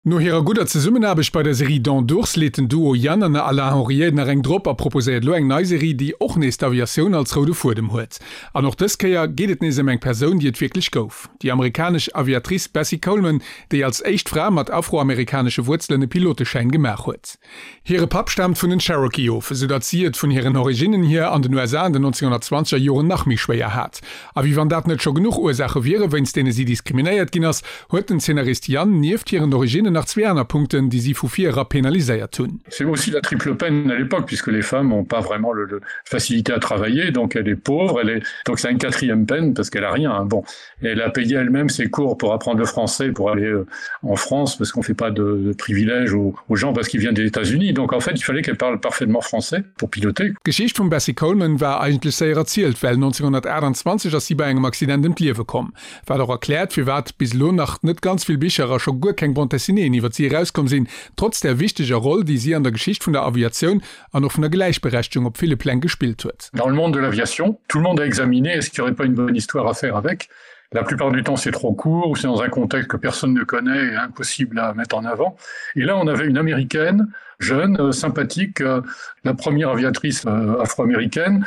No hirer gudder Zesummenaarbecht bei der Serie Dents d'ours leet den Duo Yann an Alain Henriet nach eng drop a proposéiert elo eng nei Serie, déi och nees d'Aviatioun als roude Fuedem huet. An och dës Kéier geet et nees ëm eng Persoun, déi et wierklech gouf, déi amerikanesch Aviatrice Bessie Coleman, déi als éischt Fra mat afroamerikanesche Wuerzelen e Piloteschäin gemaach huet. Hire Papp staamt vun den Cherokee of, esou datt si et vun hiren Originnen hier an den USA an den 1920er Joren nach méi schwéier hat. A wéi wann dat net scho genuch Ursaache wiere wéinst deene si diskriminéiert ginn ass, huet den Zeenarist Yann nieft hiren Originnen nach zwee aner Punkten, déi si vu vir era penaliséiert hunn. C'est aussi la triple peine à l'époque puisque les femmes ont pas vraiment le, le facilité à travailler, donc elle est pauvre, elle est donc c'est une quatrième peine parce qu'elle a rien. Bon, elle a payé elle-même ses cours pour apprendre le français pour aller euh, en France parce qu'on fait pas de, de privilèges aux, aux gens parce qu'ils viennent des États-Unis. Donc en fait, il fallait qu'elle parle parfaitement français pour piloter. D'Geschicht vum Bessie Coleman war eigentlech séier erzielt, well 1928 ass si bei engem Accident ëm d'Liewe komm. Wat och erkläert, firwat bis elo nach net ganz vill Bicher a scho guer keng Bande dessinéeën iwwer si erauskomm sinn, trotz där wichteger Roll, déi si an der Geschicht vun der Aviatioun an och vun der Gläichberechtegung op ville Pläng gespillt huet. Dans le monde de l'aviation, tout le monde a examiné est-ce qu'il n'y aurait pas une bonne histoire à faire avec. La plupart du temps, c'est trop court ou c'est dans un contexte que personne ne connaît et impossible à mettre en avant. Et là, on avait une américaine jeune, euh, sympathique, euh, la première aviatrice euh, afro-américaine.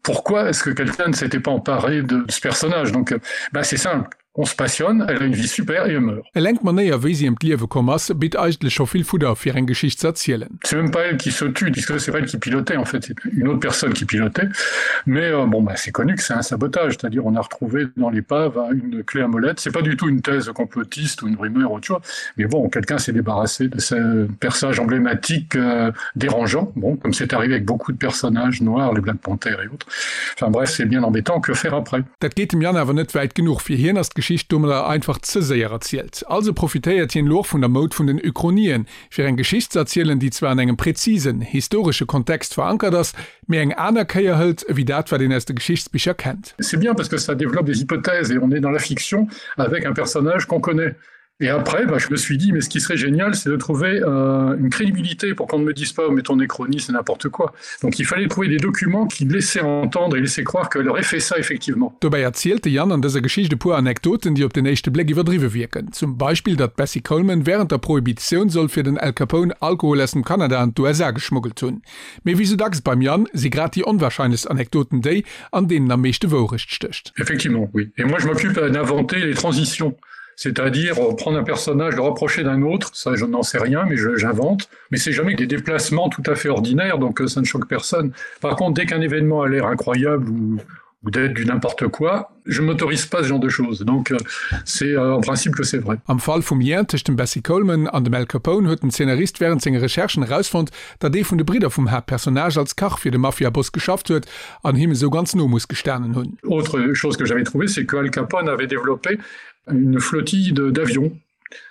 Pourquoi est-ce que quelqu'un ne s'était pas emparé de ce personnage Donc ben, c'est simple on se passionne, elle a une vie super et elle meurt. Eleng d'Manéier, wéi si ëm d'Liewe komm ass, bitt eigentlech scho vill Fudder, fir eng Geschicht ze erzielen. C'est même pas elle qui se tue, puisque c'est pas elle qui pilotait en fait, c'est une autre personne qui pilotait. Mais euh, bon, bah, c'est connu que c'est un sabotage, c'est-à-dire on a retrouvé dans l'épave une clé à molette. C'est pas du tout une thèse complotiste ou une rumeur ou autre chose, mais bon, quelqu'un s'est débarrassé de ce personnage emblématique euh, dérangeant, bon, comme c'est arrivé avec beaucoup de personnages noirs, les Black Panthers et autres. Enfin bref, c'est bien embêtant, que faire après? Dat geet dem Yann awer net wäit genuch, fir hien ass d'Geschicht domadder einfach ze séier erzielt. Also profitéiert hien elo och vun der Moud vun den Uchronien, fir eng Geschicht ze erzielen, déi zwar an engem präzisen, historesche Kontext verankert ass, mee eng aner Kéier hëlt, ewéi dat, wat een aus de Geschichtsbicher kennt. C'est bien parce que ça développe des hypothèses et on est dans la fiction avec un personnage qu'on connaît. Et après, bah, je me suis dit mais ce qui serait génial, c'est de trouver euh, une crédibilité pour qu'on ne me dise pas mais ton échronie c'est n'importe quoi. Donc il fallait trouver des documents qui laissaient entendre et laissaient croire qu'elle aurait fait ça effectivement. Dobäi erzielt de Yann an dëser Geschicht e puer Anekdoten, déi op den éischte Bléck iwwerdriwwe wierken. Zum Beispill, datt d'Bessie Coleman wärend der Prohibitioun soll fir den Al Capone Alkohol aus dem Kanada an d'USA geschmuggelt hunn. Mee wéi sou dacks beim Yann si grad déi onwarscheinlechst Anekdoten déi, an deenen am meeschte Wourecht stécht. Effectivement, oui. Et moi je m'occupe d'inventer les transitions c'est-à-dire euh, prendre un personnage, le rapprocher d'un autre, ça je n'en sais rien, mais j'invente. Mais c'est jamais des déplacements tout à fait ordinaires, donc euh, ça ne choque personne. Par contre, dès qu'un événement a l'air incroyable ou, ou d'être du n'importe quoi, je m'autorise pas ce genre de choses. Donc euh, c'est euh, en principe que c'est vrai. Am Fall vum Lien tëscht dem Bessie Coleman an dem Al Capone huet den Zeenarist wärend senge Recherchen erausfonnt, datt ee vun de Bridder vum Haaptpersonnage als Kach fir de Mafiaboss geschafft huet an him esou ganz no muss gestanen hunn. Autre chose que j'avais trouvé, c'est que Al Capone avait développé une flottille d'avions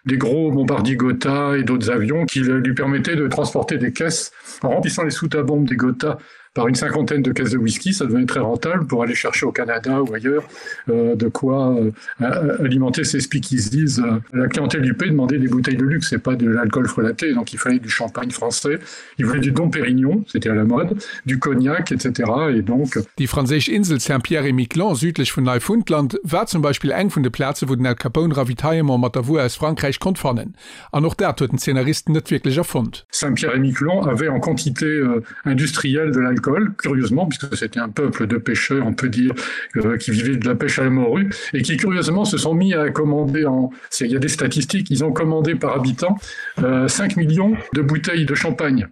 des gros bombardiers Gotha et d'autres avions qui lui permettaient de transporter des caisses en remplissant les soutes à bombes des Gotha par une cinquantaine de caisses de whisky, ça devenait très rentable pour aller chercher au Canada ou ailleurs euh, de quoi euh, alimenter ses speakeasies. La clientèle du P demandait des bouteilles de luxe et pas de l'alcool frelaté, donc il fallait du champagne français, il voulait du Dom Pérignon, c'était à la mode, du cognac, etc. et donc Déi franséisch Insel Saint-Pierre-et-Miquelon, südlech vun Neifundland, war zum Beispill eng vun de Plaze wou den Al Capone Ravitaillement mat der Wuer aus Frankräich konnt fannen. An och dat huet den Zeenarist net wierklech erfonnt. Saint-Pierre-et-Miquelon avait en quantité euh, industrielle de l'alcool, curieusement, puisque c'était un peuple de pêcheurs, on peut dire, euh, qui vivait de la pêche à la morue, et qui curieusement se sont mis à commander en. Il y a des statistiques, ils ont commandé par habitant euh, 5 millions de bouteilles de champagne.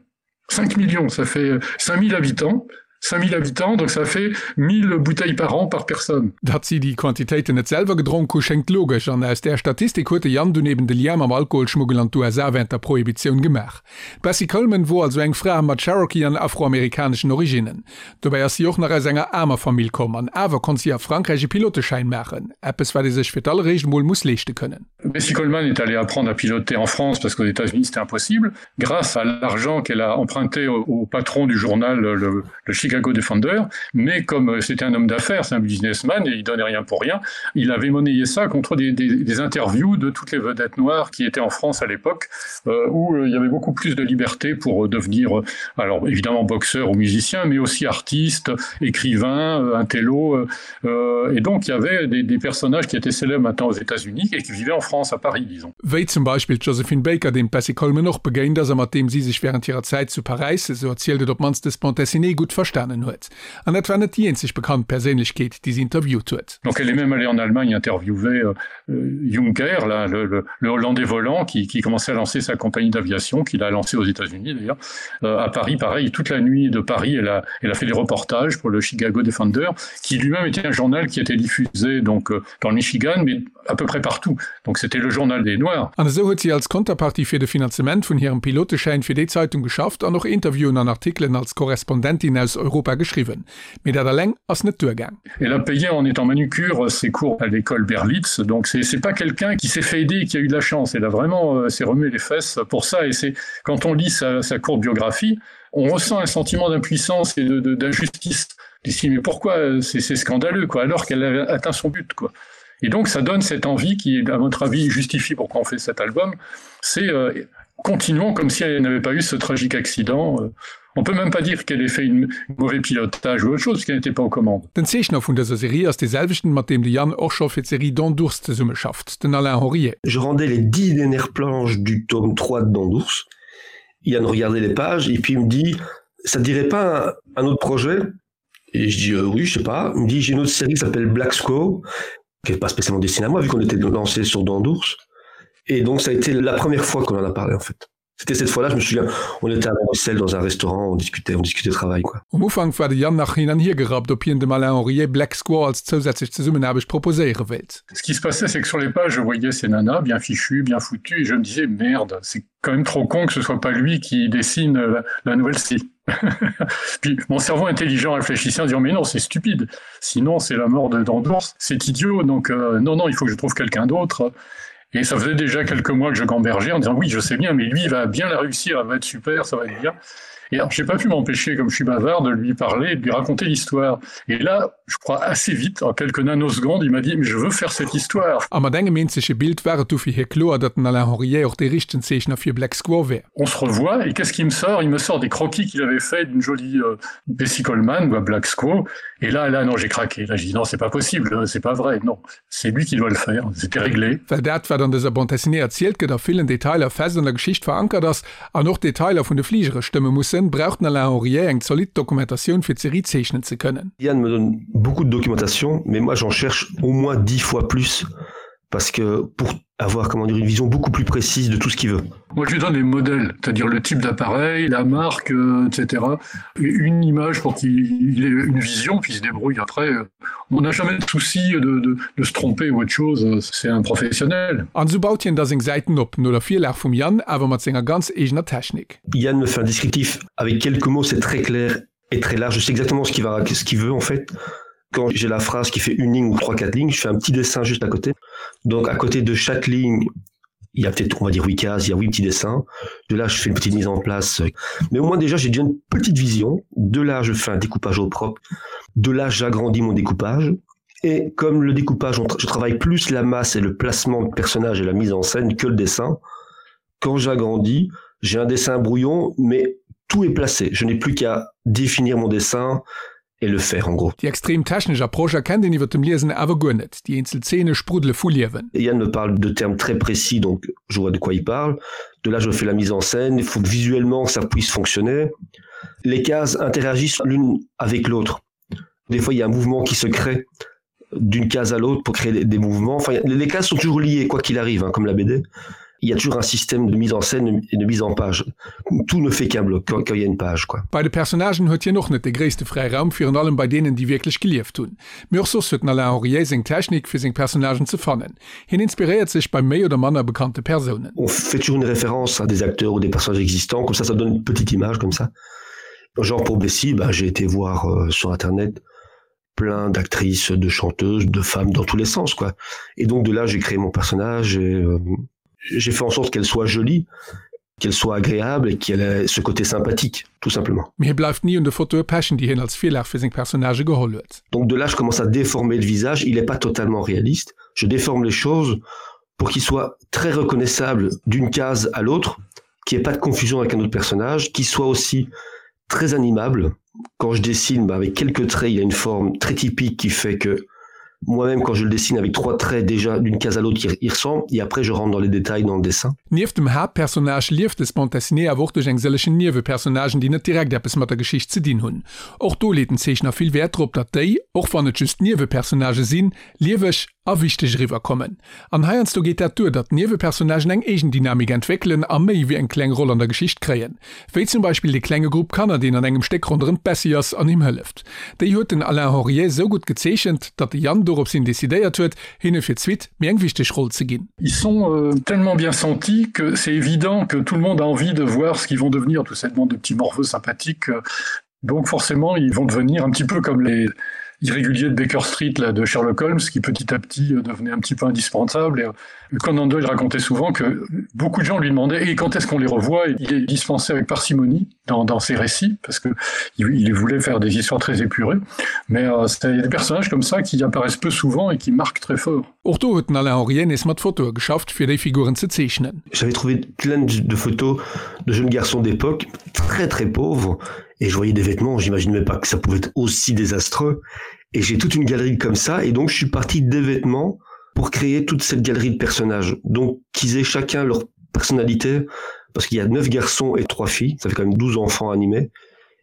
5 millions, ça fait 5000 euh, habitants. 5000 habitants, donc ça fait 1000 bouteilles par an par personne. Datt si déi Quantitéiten net selwer gedronk hu, schéngt logesch, an aus där Statistik huet de Yann dunn eben de Lien mam Alkoholschmuggel an d'USA wärend der Prohibitioun gemaach. D'Bessie Coleman wor also eng Fra mat Cherokee an afroamerikaneschen Originnen. Dobäi ass si och nach aus enger aarmer Famill komm, an awer konnt si a Frankräich e Piloteschäin maachen, eppes wat ee sech fir d'alleréischt emol muss leeschte kënnen. Bessie Coleman est allée apprendre à piloter en France parce qu'aux États-Unis c'était impossible grâce à l'argent qu'elle a emprunté au, au patron du journal le, le Chicago. Chicago Defender, mais comme euh, c'était un homme d'affaires, c'est un businessman et il donnait rien pour rien, il avait monnayé ça contre des, des, des interviews de toutes les vedettes noires qui étaient en France à l'époque, euh, où euh, il y avait beaucoup plus de liberté pour euh, devenir, euh, alors évidemment boxeur ou musicien, mais aussi artiste, écrivain, euh, intello. Euh, euh, et donc il y avait des, des personnages qui étaient célèbres maintenant aux États-Unis et qui vivaient en France, à Paris, disons. Wéi zum Beispill d'Josephine Baker, deem d'Bessie Coleman och begéint ass a mat deem si sech wärend hirer Zäit zu Paräis, esou erzielt et op d'mannst dës Bande dessinée, gutt verstanen huet. An dat war net déi eenzeg bekannt Perséinlechkeet, déi si interviewt huet. Donc elle est même allée en Allemagne interviewer euh, Juncker, là, le, le, le Hollandais volant, qui, qui commençait à lancer sa compagnie d'aviation, qu'il a lancée aux États-Unis d'ailleurs. Euh, à Paris, pareil, toute la nuit de Paris, elle a, elle a fait des reportages pour le Chicago Defender, qui lui-même était un journal qui était diffusé donc, euh, dans le Michigan, mais à peu près partout. Donc c'était le journal des Noirs. An esou huet si als Konterpartie fir de Finanzement vun hirem Piloteschäin fir déi Zeitung geschafft an och Interviewen an Artikelen als Korrespondentin aus Europa geschriwwen. Mee dat alleng ass net duergaang. Elle a payé en étant manucure ses cours à l'école Berlitz, donc c'est pas quelqu'un qui s'est fait aider et qui a eu de la chance. Elle a vraiment euh, s'est remué les fesses pour ça et c'est quand on lit sa, sa courte biographie, on ressent un sentiment d'impuissance et d'injustice. D'ici mais pourquoi euh, c'est scandaleux quoi alors qu'elle a atteint son but quoi. Et donc ça donne cette envie qui à votre avis justifie pourquoi on fait cet album, c'est euh, continuons comme si elle n'avait pas eu ce tragique accident. Euh, on peut même pas dire qu'elle ait fait une mauvais pilotage ou autre chose qui n'était pas aux commandes. Den Zeechner vun dëser Serie ass dee selwechten, mat deem de Yann och scho fir d'Serie Dents d'ours zesummeschafft, den Alain Henriet. Je rendais les 10 dernières planches du tome 3 de Dents d'ours. Yann regardait les pages et puis il me dit ça te dirait pas un, un autre projet Et je dis euh, oui, je sais pas. Il me dit j'ai une autre série qui s'appelle Black Squaw, qui n'est pas spécialement destinée à moi vu qu'on était lancé sur Dents d'ours. Et donc ça a été la première fois qu'on en a parlé en fait. C'était cette fois-là, je me souviens, on était à Bruxelles dans un restaurant, on discutait, on discutait travail quoi. Um Ufank war de Yann nach hin an hier gerappt, ob hien dem Alain Henriet Black Squaw als zousätzlech Zesummenaarbecht proposéiere wéilt. Ce qui se passait, c'est que sur les pages, je voyais ces nanas bien fichues, bien foutues, et je me disais merde, c'est quand même trop con que ce soit pas lui qui dessine la, la nouvelle scie. Puis mon cerveau intelligent réfléchissait en disant mais non, c'est stupide, sinon c'est la mort de d'Andorre, c'est idiot, donc euh, non, non, il faut que je trouve quelqu'un d'autre. Et ça faisait déjà quelques mois que je gambergeais en disant oui, je sais bien, mais lui il va bien la réussir, elle va être super, ça va être bien. Et alors j'ai pas pu m'empêcher, comme je suis bavard, de lui parler, de lui raconter l'histoire. Et là, je crois assez vite, en quelques nanosecondes, il m'a dit mais je veux faire cette histoire. A mat engem eenzege Bild war et du fir hie kloer, datt den Alain Henriet och dee richtegen Zeechner fir Black Squaw wär. On se revoit et qu'est-ce qu'il me sort? Il me sort des croquis qu'il avait fait d'une jolie euh, Bessie Coleman ou à Black Squaw. Et là, là, non, j'ai craqué. Là, j'ai dit non, c'est pas possible, c'est pas vrai. Non, c'est lui qui doit le faire. C'était réglé. Well dat, wat an dëser Bande dessinée erzielt gëtt, a villen Detailer fest an der Geschicht verankert ass an och d'Detailer vun de Fligere stëmme mussen, brauch den Alain Henriet eng zolidd Dokumentatioun fir d'Serie zeechnen ze kënnen. Yann me donne beaucoup de documentation, mais moi j'en cherche au moins dix fois plus parce que pour avoir comment dire une vision beaucoup plus précise de tout ce qu'il veut. Moi je lui donne les modèles, c'est-à-dire le type d'appareil, la marque, euh, etc. Une image pour qu'il ait une vision puis il se débrouille après. On n'a jamais de souci de, de, de se tromper ou autre chose, c'est un professionnel. An esou baut hien da seng Säiten op, no der Virlag vum Yann, awer mat senger ganz eegener Technik. Yann me fait un descriptif avec quelques mots, c'est très clair et très large. Je sais exactement ce qu'il va ce qu'il veut en fait. Quand j'ai la phrase qui fait une ligne ou trois quatre lignes, je fais un petit dessin juste à côté. Donc à côté de chaque ligne, il y a peut-être on va dire huit cases, il y a huit petits dessins. De là, je fais une petite mise en place. Mais au moins déjà, j'ai déjà une petite vision. De là, je fais un découpage au propre. De là, j'agrandis mon découpage. Et comme le découpage, je travaille plus la masse et le placement de personnages et la mise en scène que le dessin. Quand j'agrandis, j'ai un dessin brouillon, mais tout est placé. Je n'ai plus qu'à définir mon dessin et le faire en gros. Déi extrem technesch Approche erkennt een iwwer dem Liesen awer guer net, déi eenzel Zeene spruddele vu Liewen. Yann me parle de termes très précis, donc je vois de quoi il parle. De là, je fais la mise en scène, il faut que visuellement ça puisse fonctionner. Les cases interagissent l'une avec l'autre. Des fois, il y a un mouvement qui se crée d'une case à l'autre pour créer des mouvements. Enfin, les cases sont toujours liées, quoi qu'il arrive, hein, comme la BD. Il y a toujours un système de mise en scène et de mise en page. Tout ne fait qu'un bloc quand, quand il y a une page. Quoi. Bei de Personnagen huet hien och net de gréisste Fräiraum, virun allem bei deenen, déi wierklech gelieft hunn. Mee och soss huet den Alain Henriet seng Technik, fir seng Personnagen ze fannen. Hien inspiréiert sech bei méi oder manner bekannte Persounen. On fait toujours une référence à des acteurs ou des personnages existants, comme ça ça donne une petite image comme ça. Genre pour Bessie, bah, j'ai été voir euh, sur internet plein d'actrices, de chanteuses, de femmes dans tous les sens quoi. Et donc de là j'ai créé mon personnage et euh, j'ai fait en sorte qu'elle soit jolie. Qu'elle soit agréable et qu'elle ait ce côté sympathique, tout simplement. Mee hie bleift ni un de Fotoe pechen, déi hien als Virlag fir seng Personnagë geholl huet. Donc de là je commence à déformer le visage, il est pas totalement réaliste, je déforme les choses pour qu'il soit très reconnaissable d'une case à l'autre, qu'il n'y ait pas de confusion avec un autre personnage, qu'il soit aussi très animable. Quand je dessine, bah, avec quelques traits, il y a une forme très typique qui fait que moi-même quand je le dessine avec trois traits déjà d'une case à l'autre il, il ressemble et après je rentre dans les détails dans le dessin. Nieft dem Haaptpersonnage lieft dës Bande dessinée awer och duerch eng sëllechen Niewepersonnagen, déi net direkt eppes mat der Geschicht ze dinn hunn. Och do leet den Zeechner vill Wäert drop, datt déi, och wann et just Niewepersonnagë sinn, lieweg a wichteg eriwwer kommen. An heiansdo geet dat duer, datt d'Niewepersonnagen eng eegen Dynamik entwéckelen a méi wéi eng kleng Roll an der Geschicht kréien. Wéi zum Beispill dee klenge Grupp Kanner, deen an engem Stéck ronderëm d'Bessie ass an him hëlleft. Déi huet den Alain Henriet sou gutt gezeechent, datt de Yann dorops hin decidéiert huet, hinne fir d'Suite méi eng wichteg Roll ze ginn. Ils sont tellement bien sentis que c'est évident que tout le monde a envie de voir ce qu'ils vont devenir, toute cette bande de petits morveux sympathiques. Donc forcément, ils vont devenir un petit peu comme les irréguliers de Baker Street là, de Sherlock Holmes, qui petit à petit euh, devenait un petit peu indispensable. Et euh, Conan Doyle racontait souvent que beaucoup de gens lui demandaient et quand est-ce qu'on les revoit et il est dispensé avec parcimonie dans, dans ses récits parce que il, il voulait faire des histoires très épurées. Mais euh, il y a des personnages comme ça qui apparaissent peu souvent et qui marquent très fort. Och do huet den Alain Henriet nees mat Fotoe geschafft, fir déi Figuren ze zeechnen. J'avais trouvé plein de photos de jeunes garçons d'époque très très pauvres et je voyais des vêtements, j'imaginais même pas que ça pouvait être aussi désastreux et j'ai toute une galerie comme ça et donc je suis parti des vêtements pour créer toute cette galerie de personnages donc qu'ils aient chacun leur personnalité parce qu'il y a neuf garçons et trois filles, ça fait quand même 12 enfants animés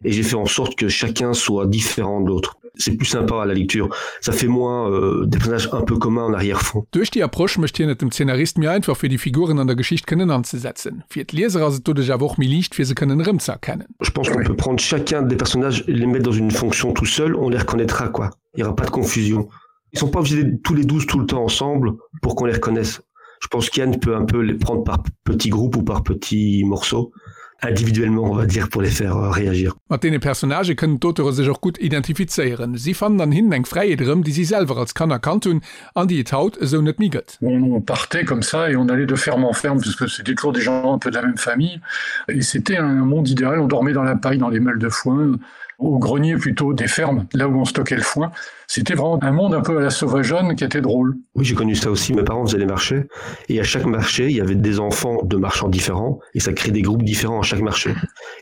et j'ai fait en sorte que chacun soit différent de l'autre. C'est plus sympa à la lecture, ça fait moins euh, des personnages un peu communs en arrière-fond. Duerch déi Approche mécht hien et dem Zeenarist méi einfach fir déi Figuren an der Geschicht kënnen anzesetzen. Fir d'Lieser ass et doduerch awer och méi liicht fir se kënnen erëmzeerkennen. Je pense qu'on peut prendre chacun des personnages et les mettre dans une fonction tout seul, on les reconnaîtra quoi. Il y aura pas de confusion. Ils sont pas obligés d'être tous les 12 tout le temps ensemble pour qu'on les reconnaisse. Je pense qu'Yann peut un peu les prendre par petits groupes ou par petits morceaux individuellement on va dire pour les faire euh, réagir. Mat deene Personnagë kënnen d'Auteure sech och gutt identifizéieren. Si fannen an hinnen eng Fräiheet erëm, déi si selwer als Kanner kannt hunn an déi et haut esou net méi gëtt. On partait comme ça et on allait de ferme en ferme puisque c'était toujours des gens un peu de la même famille et c'était un monde idéal, on dormait dans la paille, dans les meules de foin, au grenier plutôt des fermes, là où on stockait le foin. C'était vraiment un monde un peu à la sauvageonne qui était drôle. Oui, j'ai connu ça aussi, mes parents faisaient les marchés et à chaque marché, il y avait des enfants de marchands différents et ça crée des groupes différents à chaque marché.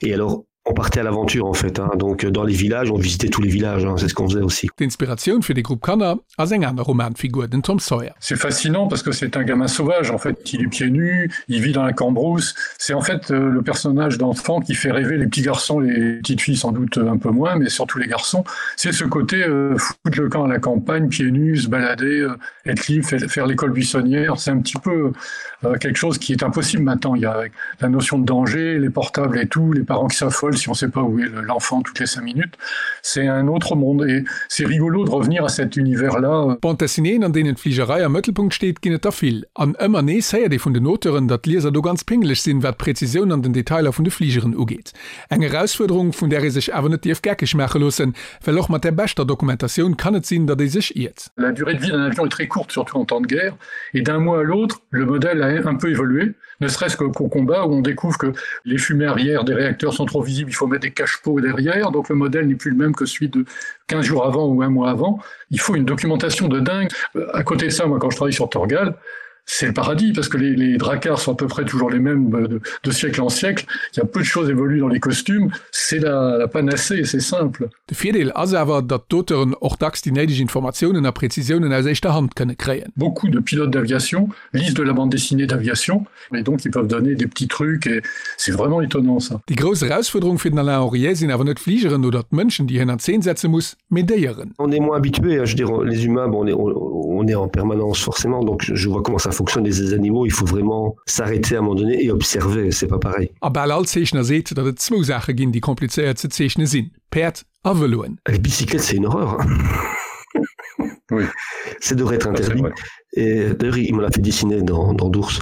Et alors on partait à l'aventure en fait hein. donc dans les villages on visitait tous les villages c'est ce qu'on faisait aussi. D'Inspiratioun fir de Grupp Kanner ass eng aner Romanfigur, den Tom Sawyer. C'est fascinant parce que c'est un gamin sauvage en fait il est pieds nus, il vit dans la cambrousse. C'est en fait euh, le personnage d'enfant qui fait rêver les petits garçons, les petites filles sans doute un peu moins, mais surtout les garçons. C'est ce côté euh, foutre le camp à la campagne, pieds nus, se balader, euh, être libre, faire l'école buissonnière, c'est un petit peu euh, quelque chose qui est impossible maintenant. Il y a la notion de danger, les portables et tout, les parents qui s'affolent si on sait pas où est l'enfant toutes les cinq minutes. C'est un autre monde et c'est rigolo de revenir à cet univers là. Bande dessinéeën, an deenen d'Fligerei am Mëttelpunkt steet, ginn et der vill. An ëmmer nees héiert ee vun den Auteuren, datt d'Lieser do ganz pingeleg sinn, wat d'Präzisioun an den Detailer vun de Fligeren ugeet. Eng Erausfuerderung, vun där ee sech awer net dierf geckeg maache loossen, well och mat der beschter Dokumentatioun kann et sinn, datt ee sech iert. La durée de vie d'un avion est très courte, surtout en temps de guerre, et d'un mois à l'autre, le modèle a un peu évolué, ne serait-ce qu'au combat où on découvre que les fumées arrière des réacteurs sont trop visibles, il faut mettre des cache-pots derrière, donc le modèle n'est plus le même que celui de 15 jours avant ou un mois avant. Il faut une documentation de dingue. Euh, à côté de ça, moi quand je travaille sur Torgal, c'est le paradis parce que les, les dracars sont à peu près toujours les mêmes euh, de, de siècle en siècle. Il y a peu de choses évoluent dans les costumes, c'est la, la panacée et c'est simple. De Virdeel ass awer, datt d'Auteuren och dacks déi néideg Informatiounen a Präzisiounen aus éischter Hand kënne kréien. Beaucoup de pilotes d'aviation lisent de la bande dessinée d'aviation et donc ils peuvent donner des petits trucs et c'est vraiment étonnant ça. Déi grouss Erausfuerderung fir den Alain Henriet sinn awer net d'Fligeren oder d'Mënschen, déi hien an Zeen setze muss, mee Déieren. On est moins habitué, je veux dire les humains bon on est on est en permanence forcément donc je vois comment ça fonctionne les animaux, il faut vraiment s'arrêter à un moment donné et observer, c'est pas pareil. A bal all Zeechner seet, datt et zwou Saache ginn, déi komplizéiert ze zeechne sinn, Päerd a Vëloen. Les bicyclettes c'est une horreur oui. Ça devrait être interdit et d'ailleurs il m'en a fait dessiner dans, dans d'ours.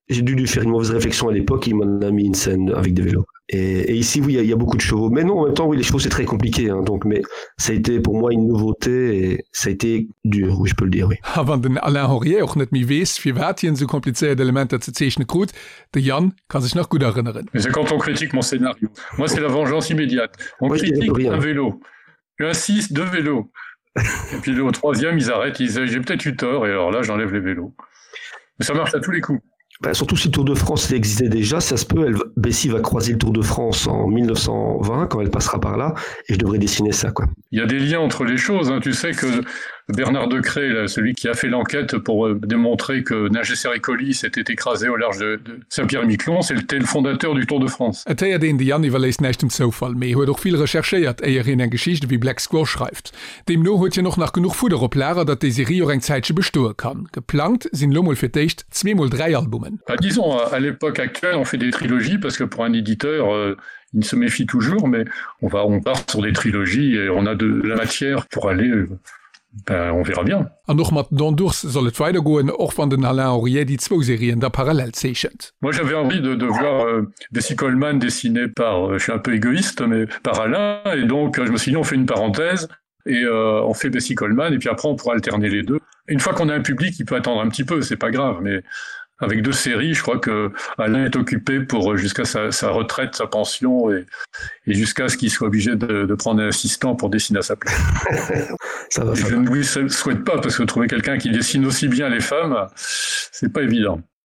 J'ai dû lui faire une mauvaise réflexion à l'époque, il m'en a mis une scène avec des vélos. Et, et ici oui il y, y a beaucoup de chevaux mais non en même temps oui les chevaux c'est très compliqué hein, donc mais ça a été pour moi une nouveauté et ça a été dur oui je peux le dire oui. A wann den Alain Henriet och net méi weess, firwat hien esou komplizéiert Elementer ze zeechne krut, de Yann ka sech nach gutt erënneren. Mais c'est quand on critique mon scénario. Moi c'est la vengeance immédiate. On moi, critique un vélo. J'insiste deux vélos. Et puis au troisième ils arrêtent, ils disent j'ai peut-être eu tort et alors là j'enlève les vélos. Mais ça marche à tous les coups. Ben, surtout si le Tour de France existait déjà, ça se peut, elle, Bessie va croiser le Tour de France en 1920 quand elle passera par là et je devrais dessiner ça quoi. Il y a des liens entre les choses hein. Tu sais que Bernard Decré, là, celui qui a fait l'enquête pour euh, démontrer que Nager Sericoli s'était écrasé au large de, de Saint-Pierre-Miquelon, c'était le fondateur du Tour de France. Et héiert een, de Yann iwwerléisst näischt dem Zoufall, mee huet och vill recherchéiert, éier hien eng Geschicht ewéi Black Squaw schreift. Deemno huet hien och nach genuch Fudder op Lager, datt déi Serie och eng Zäitche bestoe kann. Geplangt sinn elo mol fir d'éischt zweemol 3 Albumen. Bah, disons, à l'époque actuelle, on fait des trilogies parce que pour un éditeur, euh, il se méfie toujours, mais on va on part sur des trilogies et on a de la matière pour aller euh, ben, on verra bien. An och mat Dents d'ours soll et weidergoen, och wann den Alain Henriet déi zwou Serien da parallel zeechent. Moi j'avais envie de, de voir euh, Bessie Coleman dessiné par euh, je suis un peu égoïste mais par Alain et donc euh, je me suis dit on fait une parenthèse et euh, on fait Bessie Coleman et puis après on pourra alterner les deux. Une fois qu'on a un public, il peut attendre un petit peu, c'est pas grave mais avec deux séries, je crois que Alain est occupé pour euh, jusqu'à sa, sa retraite, sa pension et, et jusqu'à ce qu'il soit obligé de, de prendre un assistant pour dessiner à sa place. ça va, ça je ne lui souhaite pas parce que trouver quelqu'un qui dessine aussi bien les femmes, c'est pas évident.